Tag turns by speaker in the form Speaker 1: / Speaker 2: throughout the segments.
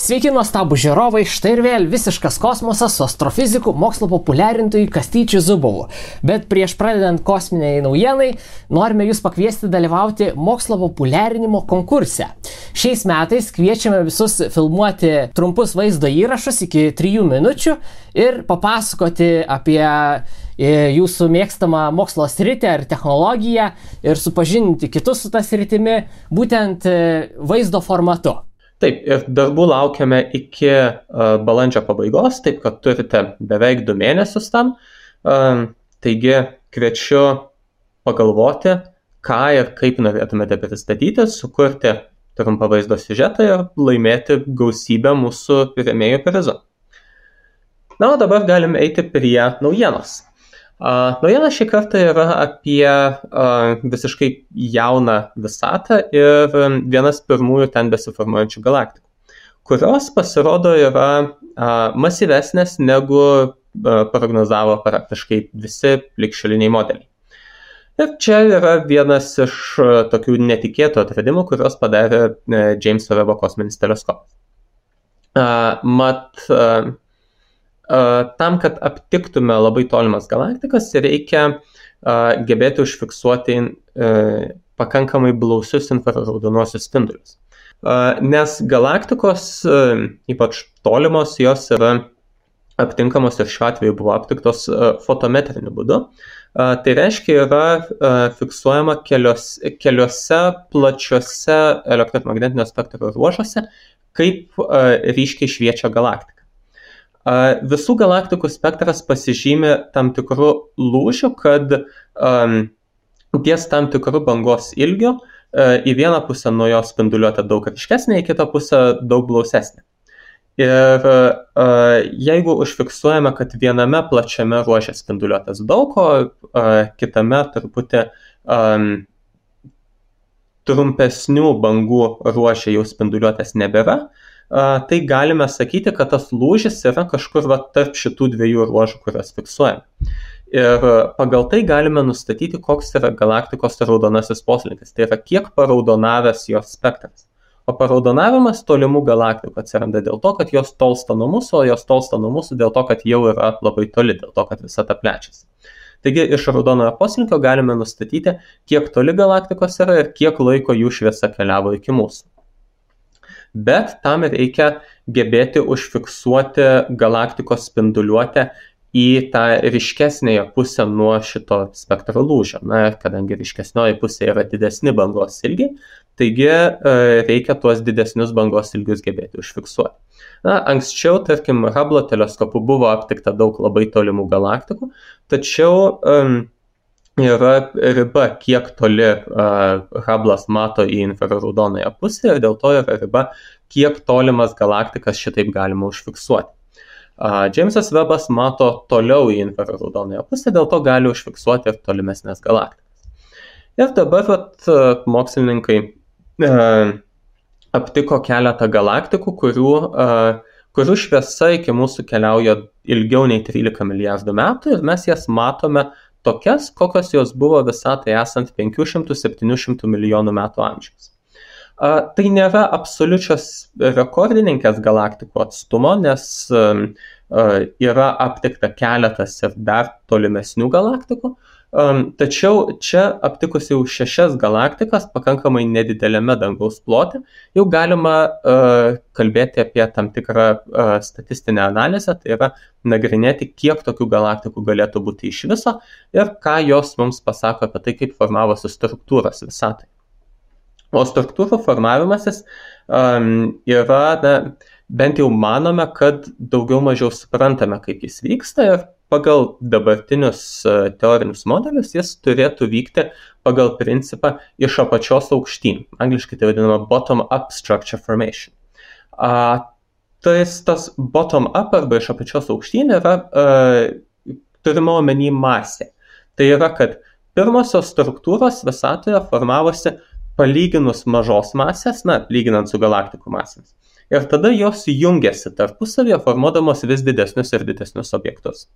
Speaker 1: Sveiki nuostabų žiūrovai, štai ir vėl visiškas kosmosas su astrofiziku, mokslo populiarintojui Kastyčiu Zubovu. Bet prieš pradedant kosminiai naujienai, norime jūs pakviesti dalyvauti mokslo populiarinimo konkurse. Šiais metais kviečiame visus filmuoti trumpus vaizdo įrašus iki 3 minučių ir papasakoti apie jūsų mėgstamą mokslo sritį ar technologiją ir supažindinti kitus su tą sritimi būtent vaizdo formatu.
Speaker 2: Taip, ir darbų laukiame iki balandžio pabaigos, taip kad turite beveik 2 mėnesius tam. Taigi kviečiu pagalvoti, ką ir kaip norėtumėte pristatyti, sukurti trumpą vaizdo siužetą ir laimėti gausybę mūsų rėmėjų prizų. Na, o dabar galime eiti prie naujienos. Naujiena šį kartą yra apie visiškai jauną visatą ir vienas pirmųjų ten besiformuojančių galaktikų, kurios pasirodo yra masyvesnės negu prognozavo praktiškai visi ligšioliniai modeliai. Ir čia yra vienas iš tokių netikėtų atradimų, kurios padarė Jameso Webbo kosminis teleskopas. Tam, kad aptiktume labai tolimas galaktikas, reikia gebėti užfiksuoti pakankamai blausius infraraudonuosius spindulius. Nes galaktikos, ypač tolimos, jos yra aptinkamos ir šiuo atveju buvo aptiktos fotometriniu būdu. Tai reiškia, yra fiksuojama keliose plačiose elektromagnetinio spektro ruožuose, kaip ryškiai šviečia galaktika. Visų galaktikų spektras pasižymi tam tikrų lūžių, kad ties tam tikrų bangos ilgių į vieną pusę nuo jos spinduliuotė daug ryškesnė, į kitą pusę daug blausesnė. Ir jeigu užfiksuojame, kad viename plačiame ruože spinduliuotės daug, o kitame truputį trumpesnių bangų ruože jau spinduliuotės nebėra, tai galime sakyti, kad tas lūžis yra kažkur tarp šitų 2 ruožų, kurias fiksuojame. Ir pagal tai galime nustatyti, koks yra galaktikos raudonasis poslinkis. Tai yra, kiek paraudonavęs jos spektras. O paraudonavimas tolimų galaktikų atsiranda dėl to, kad jos tolsta nuo mūsų, o jos tolsta nuo mūsų dėl to, kad jau yra labai toli, dėl to, kad visata plečiasi. Taigi iš raudonojo poslinkio galime nustatyti, kiek toli galaktikos yra ir kiek laiko jų šviesa keliavo iki mūsų. Bet tam reikia gebėti užfiksuoti galaktikos spinduliuotę į tą ryškesnėje pusę nuo šito spektro lūžio. Na, kadangi ryškesnioji pusė yra didesni bangos ilgiai, taigi reikia tuos didesnius bangos ilgius gebėti užfiksuoti. Na, anksčiau, tarkim, Hubble teleskopu buvo aptikta daug labai tolimų galaktikų, tačiau yra riba, kiek toli Hubble'as mato į infraraudonąją pusę ir dėl to yra riba, kiek tolimas galaktikas šitaip galima užfiksuoti. Jamesas Webbas mato toliau į infraraudonąją pusę, dėl to gali užfiksuoti ir tolimesnės galaktikas. Ir dabar mokslininkai aptiko keletą galaktikų, kurių šviesa iki mūsų keliauja ilgiau nei 13 milijardų metų ir mes jas matome tokias, kokios jos buvo visatai esant 500-700 milijonų metų amžiaus. Tai nėra absoliučios rekordininkės galaktikų atstumo, nes yra aptikta keletas ir dar tolimesnių galaktikų, tačiau čia aptikus jau 6 galaktikas pakankamai nedidelėme dangaus plote, jau galima kalbėti apie tam tikrą statistinę analizę, tai yra nagrinėti, kiek tokių galaktikų galėtų būti iš viso ir ką jos mums pasako apie tai, kaip formavosi struktūros visatai. O struktūrų formavimasis yra, bent jau manome, kad daugiau mažiau suprantame, kaip jis vyksta ir pagal dabartinius teorinius modelius jis turėtų vykti pagal principą iš apačios aukštyn. Angliškai tai vadinama bottom-up structure formation. Tas bottom-up arba iš apačios aukštyn yra turima omeny masė. Tai yra, kad pirmosios struktūros visatoje formavosi palyginus mažos masės, lyginant su galaktikų masėmis. Ir tada jos jungiasi tarpusavėje, formuodamos vis didesnius ir didesnius objektus.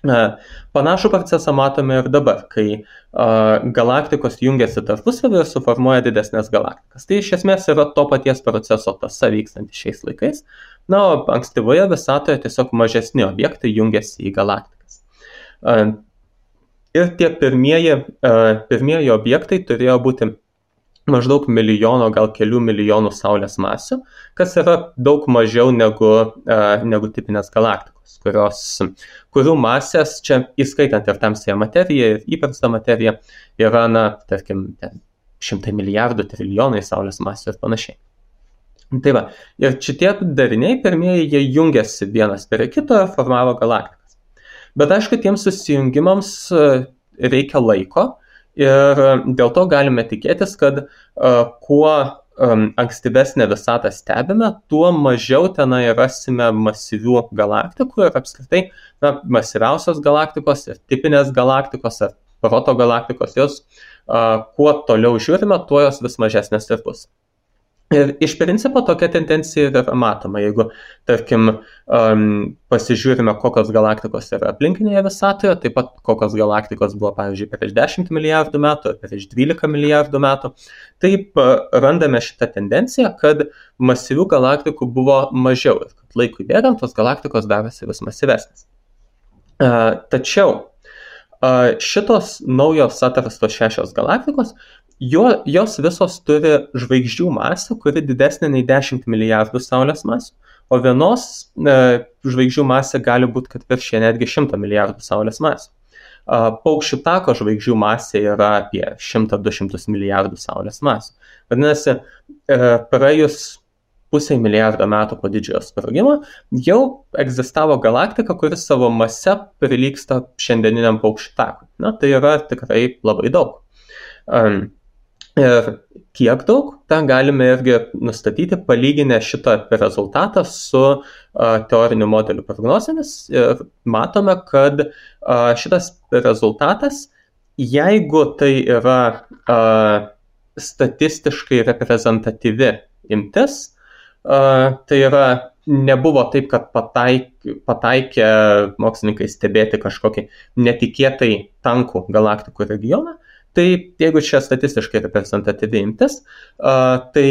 Speaker 2: Panašų procesą matome ir dabar, kai galaktikos jungiasi tarpusavį ir suformuoja didesnės galaktikas. Tai iš esmės yra to paties proceso tąsa vykstanti šiais laikais. Na, o ankstyvoje visatoje tiesiog mažesni objektai jungiasi į galaktikas. Ir tie pirmieji objektai turėjo būti maždaug milijono, gal kelių milijonų Saulės masių, kas yra daug mažiau negu tipinės galaktikos, kurių masės, čia įskaitant ir tamsiąją materiją, ir įprastą materiją, yra, tarkim, 100 milijardų, trilijonai Saulės masių ir panašiai. Tai va, ir šitie dariniai pirmieji, jie jungiasi vienas prie kito ir formavo galaktikas. Bet aišku, tiems susijungimams reikia laiko, ir dėl to galime tikėtis, kad kuo ankstyvesnę visatą stebime, tuo mažiau tenai rasime masyvių galaktikų ir apskritai masyviausios galaktikos ir tipinės galaktikos ar protogalaktikos, jos kuo toliau žiūrime, tuo jos vis mažesnės ir bus. Ir iš principo tokia tendencija yra matoma, jeigu, tarkim, pasižiūrime, kokios galaktikos yra aplinkinėje visatoje, taip pat kokios galaktikos buvo, pavyzdžiui, prieš 10 milijardų metų, prieš 12 milijardų metų, taip randame šitą tendenciją, kad masyvių galaktikų buvo mažiau ir kad laikui bėgant tos galaktikos darosi vis masyvesnės. Tačiau šitos naujos atrastos 6 galaktikos, jos visos turi žvaigždžių masę, kuri didesnė nei 10 milijardų Saulės masių, o vienos žvaigždžių masė gali būti, kad viršė netgi 100 milijardų Saulės masių. Paukščių tako žvaigždžių masė yra apie 100-200 milijardų Saulės masių. Vadinasi, praėjus pusei milijardo metų po didžiojo sprogimo jau egzistavo galaktika, kuris savo mase prilygsta šiandieniniam paukščių takui. Tai yra tikrai labai daug. Ir kiek daug, tą galime irgi nustatyti, palyginę šitą rezultatą su teorinių modelių prognozėmis. Ir matome, kad šitas rezultatas, jeigu tai yra statistiškai reprezentatyvi imtis, tai yra nebuvo taip, kad pataikė mokslininkai stebėti kažkokį netikėtai tankų galaktikų regioną. Tai jeigu čia statistiškai reprezentatyvi imtis, tai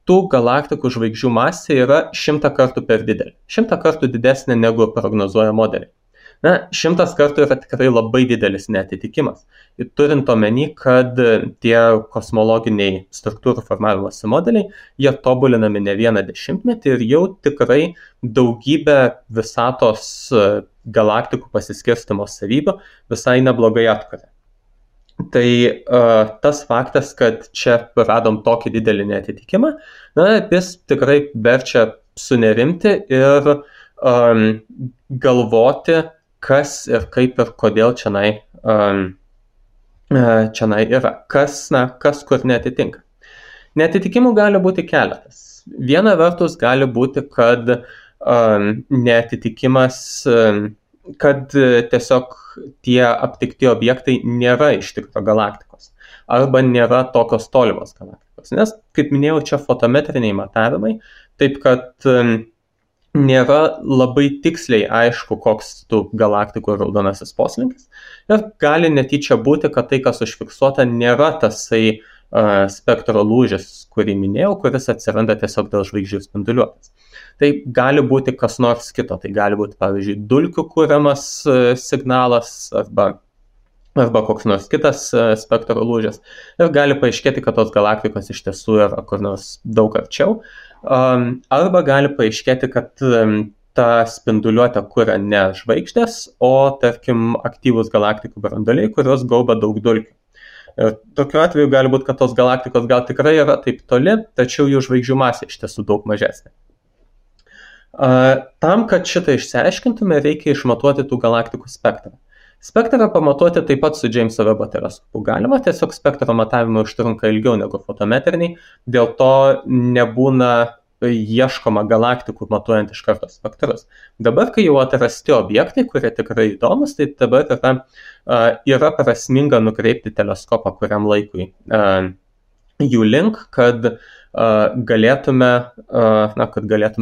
Speaker 2: tų galaktikų žvaigždžių masė yra 100 kartų per didelė. 100 kartų didesnė negu prognozuoja modeliai. 100 kartų yra tikrai labai didelis neatitikimas. Ir turint omeny, kad tie kosmologiniai struktūrų formavimosi modeliai, jie tobulinami ne vieną dešimtmetį ir jau tikrai daugybę visatos galaktikų pasiskirstymo savybių visai neblogai atkuria. Tai tas faktas, kad čia radom tokį didelį neatitikimą, jis tikrai verčia sunerimti ir galvoti, kas ir kaip ir kodėl čionai yra, kas kur neatitinka. Neatitikimų gali būti keletas. Viena vertus gali būti, kad neatitikimas, kad tiesiog tie aptikti objektai nėra iš tikro galaktikos arba nėra tokios tolimos galaktikos. Nes, kaip minėjau, čia fotometriniai matavimai, taip kad nėra labai tiksliai aišku, koks tų galaktikų raudonasis poslinkis. Ir gali netyčia būti, kad tai, kas užfiksuota, nėra tasai spektro lūžis, kurį minėjau, kuris atsiranda tiesiog dėl žvaigždžių spinduliuotės. Tai gali būti kas nors kito, tai gali būti, pavyzdžiui, dulkių kuriamas signalas arba koks nors kitas spektro lūžis. Ir gali paaiškėti, kad tos galaktikos iš tiesų yra kur nors daug arčiau. Arba gali paaiškėti, kad tą spinduliuotę kuria ne žvaigždės, o, tarkim, aktyvūs galaktikų branduoliai, kurios gaubia daug dulkių. Ir tokiu atveju gali būti, kad tos galaktikos gal tikrai yra taip toli, tačiau jų žvaigždžių masė iš tiesų daug mažesnė. Tam, kad šitą išsiaiškintume, reikia išmatuoti tų galaktikų spektrą. Spektrą pamatuoti taip pat su Jameso Webb teleskopu galima, tiesiog spektro matavimai užtrunka ilgiau negu fotometriniai, dėl to nebūna ieškoma galaktikų matuojant iš karto spektrus. Dabar, kai jau atrasti objektai, kurie tikrai įdomus, tai dabar yra prasminga nukreipti teleskopą kuriam laikui jų link, kad galėtume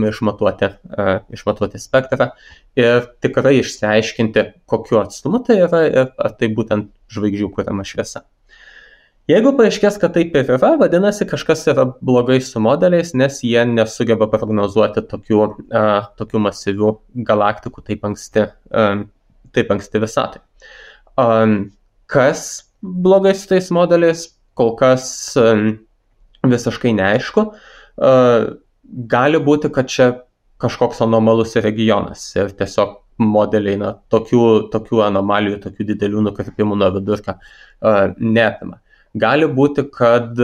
Speaker 2: išmatuoti spektrą ir tikrai išsiaiškinti, kokiu atstumu tai yra ir ar tai būtent žvaigždžių kuriama šviesa. Jeigu paaiškės, kad taip ir yra, vadinasi, kažkas yra blogai su modeliais, nes jie nesugeba prognozuoti tokių masyvių galaktikų taip anksti visatai. Kas blogai su tais modeliais, kol kas visiškai neaišku. Gali būti, kad čia kažkoks anomalus regionas ir tiesiog modeliai tokių anomalijų, tokių didelių nukrypimų nuo vidurkio neapima. Gali būti, kad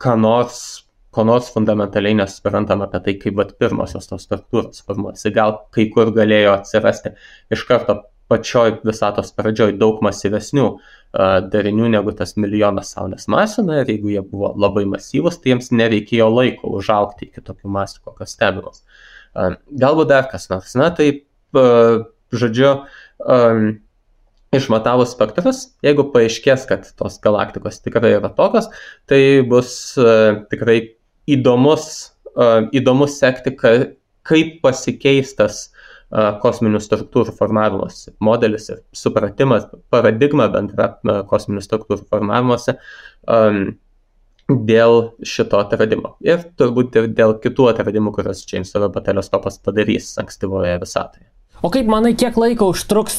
Speaker 2: ko nors fundamentaliai nesuprantama apie tai, kaip pirmosios tos struktūros formuojasi. Gal kai kur galėjo atsirasti iš karto pačioj visatos pradžioj daug masyvesnių darinių negu tas milijonas Saulės masių, ir jeigu jie buvo labai masyvus, tai jiems nereikėjo laiko užaugti iki tokių masių, kokios stebimos. Galbūt dar kas nors. Išmatavus spektrus, jeigu paaiškės, kad tos galaktikos tikrai yra tokios, tai bus tikrai įdomus sekti, kaip pasikeistas kosminių struktūrų formavimuose modelis ir supratimas, paradigma bendra kosminių struktūrų formavimuose dėl šito atradimo. Ir turbūt ir dėl kitų atradimų, kurios Džeimso Vebo teleskopas padarys ankstyvoje visatoje.
Speaker 1: O kaip manai, kiek laiko užtruks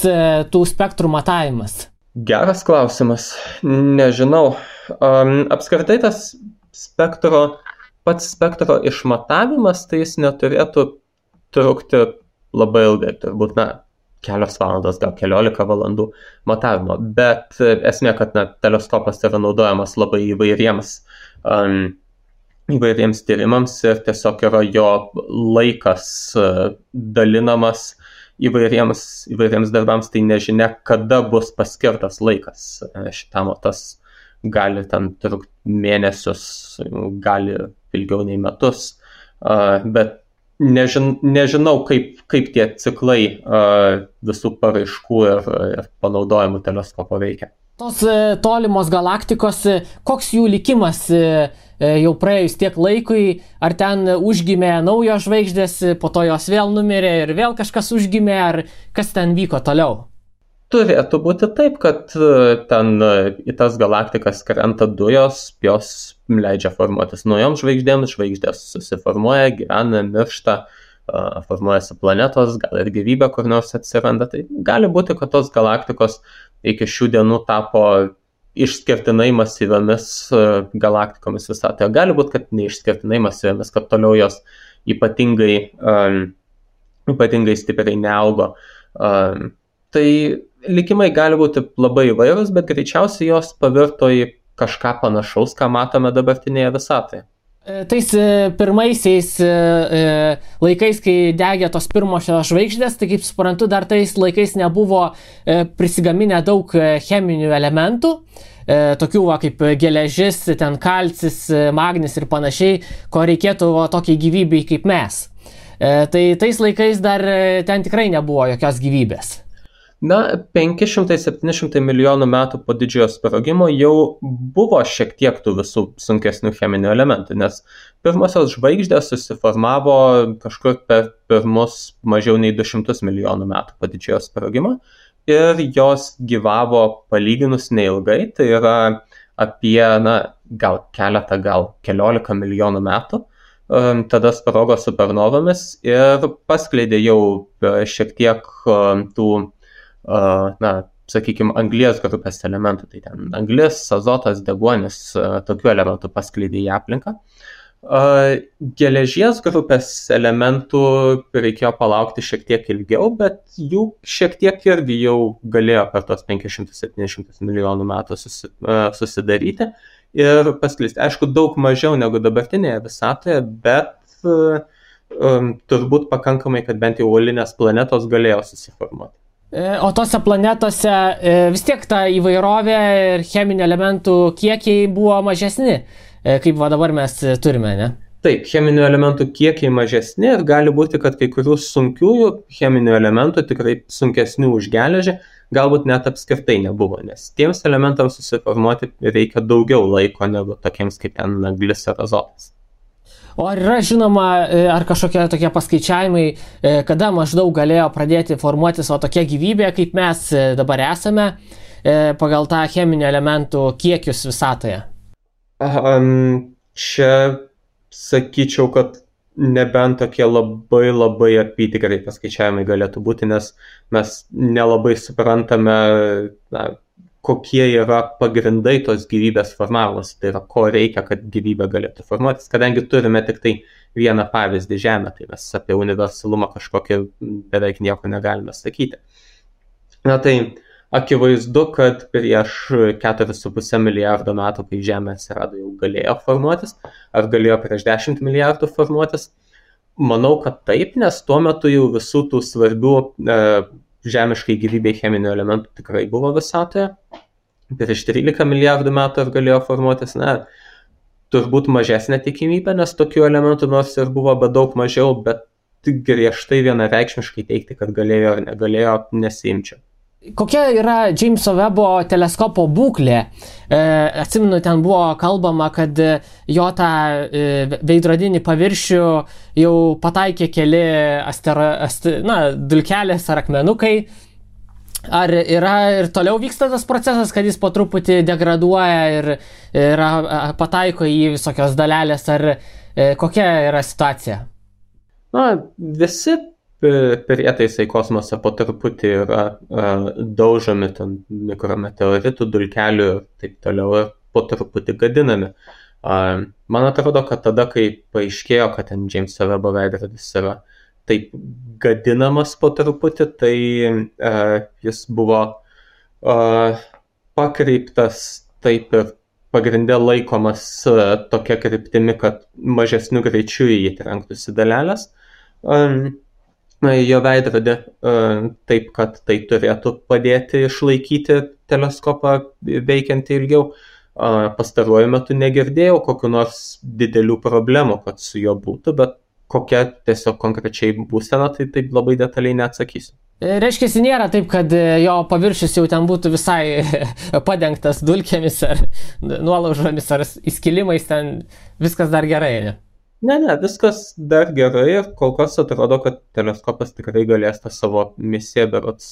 Speaker 1: tų spektrų matavimas?
Speaker 2: Geras klausimas. Nežinau. Apskritai tas pats spektro išmatavimas, tai jis neturėtų trukti labai ilgai, turbūt kelios valandos, gal 15 valandų matavimo, bet esmė, kad teleskopas yra naudojamas labai įvairiems tyrimams ir tiesiog yra jo laikas dalinamas įvairiems darbams, tai nežinia, kada bus paskirtas laikas šitam, o tas gali ten trukti mėnesius, gali ilgiau nei metus, bet nežinau, kaip tie ciklai visų paraiškų ir panaudojimų teleskopo veikia.
Speaker 1: Tos tolimos galaktikos, koks jų likimas jau praėjus tiek laikui, ar ten užgimė naujos žvaigždės, po to jos vėl numirė ir vėl kažkas užgimė, ar kas ten vyko toliau?
Speaker 2: Turėtų būti taip, kad ten į tas galaktikas krenta dujos, jos leidžia formuotis naujoms žvaigždėms, žvaigždės susiformuoja, gyvena, miršta, formuojasi planetos, gal ir gyvybė kur nors atsiranda. Tai gali būti, kad tos galaktikos iki šių dienų tapo išskirtinai masyviamis galaktikomis visatoje. Gali būti, kad neišskirtinai masyviamis, kad toliau jos ypatingai stipriai neaugo. Tai likimai gali būti labai įvairūs, bet greičiausiai jos pavirto į kažką panašaus, ką matome dabartinėje visatoje.
Speaker 1: Tais pirmaisiais laikais, kai degė tos pirmosios žvaigždės, tai kaip suprantu, dar tais laikais nebuvo prisigaminę daug cheminių elementų, tokių kaip geležis, ten kalcis, magnis ir panašiai, ko reikėtų tokiai gyvybei kaip mes. Tai tais laikais dar ten tikrai nebuvo jokios gyvybės. 500-700 milijonų metų po didžiojo sprogimo jau buvo šiek tiek tų visų sunkesnių cheminių elementų, nes pirmosios žvaigždės susiformavo kažkur per pirmus mažiau nei 200 milijonų metų po didžiojo sprogimo ir jos gyvavo palyginus neilgai, tai yra apie gal keletą, gal 14 milijonų metų. Tada sprogo supernovomis ir paskleidė jau šiek tiek tų sakykime, anglies grupės elementų, tai ten anglis, azotas, deguonis, tokių elementų paskleidė į aplinką. Geležies grupės elementų reikėjo palaukti šiek tiek ilgiau, bet jų šiek tiek irgi jau galėjo per tos 500-700 milijonų metų susidaryti ir paskleisti. Aišku, daug mažiau negu dabartinėje visatoje, bet turbūt pakankamai, kad bent jau uolinės planetos galėjo susiformuoti. O tose planetose vis tiek ta įvairovė ir cheminių elementų kiekiai buvo mažesni, kaip dabar mes turime, ne?
Speaker 2: Taip, cheminių elementų kiekiai mažesni ir gali būti, kad kai kurių sunkiųjų cheminių elementų, tikrai sunkesnių už geležį, galbūt net apskritai nebuvo, nes tiems elementams susiformuoti reikia daugiau laiko negu tokiems kaip ten anglis ar azotas.
Speaker 1: O ar yra žinoma, ar kažkokie tokie paskaičiavimai, kada maždaug galėjo pradėti formuotis tokia gyvybė, kaip mes dabar esame, pagal tą cheminių elementų kiekius visatoje?
Speaker 2: Čia sakyčiau, kad nebent tokie labai apytikriai paskaičiavimai galėtų būti, nes mes nelabai suprantame, kokie yra pagrindai tos gyvybės formavimas, tai yra ko reikia, kad gyvybė galėtų formuotis, kadangi turime tik tai vieną pavyzdį Žemę, tai mes apie universalumą kažkokį beveik nieko negalime sakyti. Tai akivaizdu, kad prieš 4,5 milijardo metų, kai Žemė atsirado, jau galėjo formuotis, ar galėjo prieš 10 milijardų formuotis. Manau, kad taip, nes tuo metu jau visų tų svarbių žemiškai gyvybei cheminių elementų tikrai buvo visatoje. Prieš 13 milijardų metų ar galėjo formuotis, turbūt mažesnė tikimybė, nes tokių elementų nors ir buvo, bet daug mažiau, bet griežtai vienareikšmiškai teikti, kad galėjo ar negalėjo, nesiimčiau.
Speaker 1: Kokia yra Jameso Webbo teleskopo būklė? Atsimenu, ten buvo kalbama, kad jo tą veidrodinį paviršių jau pataikė keli dulkelės ar akmenukai. Ar yra ir toliau vyksta tas procesas, kad jis po truputį degraduoja ir pataiko į visokios dalelės, ar kokia yra situacija?
Speaker 2: Visi prietaisai kosmose po truputį yra daužomi ten mikrometeoritų, dulkelių ir taip toliau ir po truputį gadinami. Man atrodo, kad tada, kai paaiškėjo, kad ten Jameso Webbo veidrodis yra taip gadinamas po truputį, tai jis buvo pakreiptas taip ir pagrinde laikomas tokia kryptimi, kad mažesniu greičiu į jį trenktųsi dalelės. Jo veidrodį taip, kad tai turėtų padėti išlaikyti teleskopą veikiantį ilgiau. Pastaruoju metu negirdėjau kokių nors didelių problemų, kad su juo būtų, bet kokia tiesiog konkrečiai būsena, tai taip labai detaliai neatsakysiu.
Speaker 1: Reiškia, nėra taip, kad jo paviršius jau ten būtų visai padengtas dulkėmis ar nuolaužomis ar įskilimais, ten viskas dar gerai, ne?
Speaker 2: Ne, viskas dar gerai ir kol kas atrodo, kad teleskopas tikrai galės tą savo misiją berods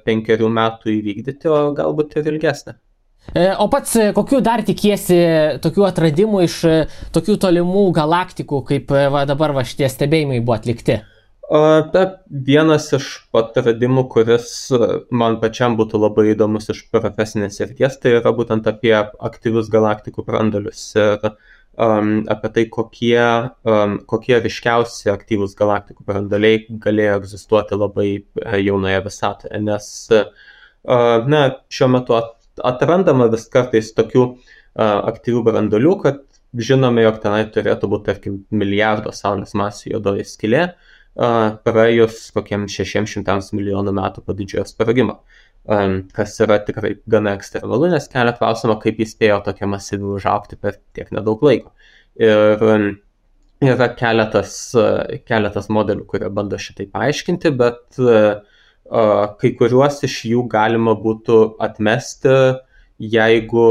Speaker 2: 5 metų įvykdyti, o galbūt ir ilgesnę.
Speaker 1: O pats kokių dar tikiesi tokių atradimų iš tokių tolimų galaktikų, kaip dabar šitie stebėjimai buvo atlikti?
Speaker 2: Vienas iš atradimų, kuris man pačiam būtų labai įdomus iš profesinės srities, tai yra būtent apie aktyvius galaktikų branduolius ir apie tai, kokie ryškiausi aktyvūs galaktikų branduoliai galėjo egzistuoti labai jaunoje visatoje, nes šiuo metu atrandama vis kartais tokių aktyvių branduolių, kad žinome, jog tenai turėtų būti, tarkim, milijardo saulės masių juodoji skylė, praėjus kokiems 600 milijonų metų po didžiojo sprogimo. Kas yra tikrai gana ekstremalu, nes kelia klausimą, kaip jis spėjo tokia masyvi užaugti per tiek nedaug laiko. Ir yra keletas modelių, kurie bando šitai paaiškinti, bet kai kuriuos iš jų galima būtų atmesti, jeigu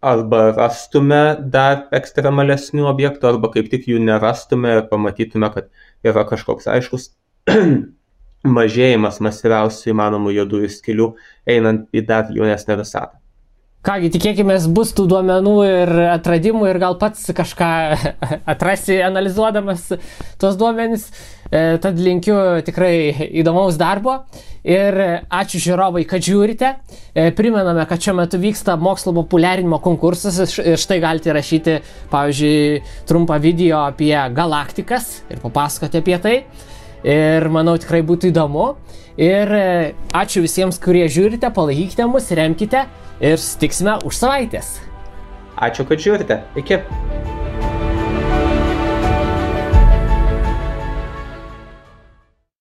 Speaker 2: arba rastume dar ekstremalesnių objektų, arba kaip tik jų nerastume ir pamatytume, kad yra kažkoks aiškus mažėjimas masyviausių įmanomų juodųjų skylių einant į dar jaunesnę visatą.
Speaker 1: Kągi, tikėkime, bus tų duomenų ir atradimų ir gal pats kažką atrasi analizuodamas tuos duomenis. Tad linkiu tikrai įdomaus darbo ir ačiū žiūrovai, kad žiūrite. Primename, kad šiuo metu vyksta mokslo populiarinimo konkursas ir štai galite rašyti, pavyzdžiui, trumpą video apie galaktikas ir papasakoti apie tai. Ir manau tikrai būtų įdomu. Ir ačiū visiems, kurie žiūrite, palaikykite mus, remkite ir susitiksime už savaitės.
Speaker 2: Ačiū, kad žiūrite. Iki.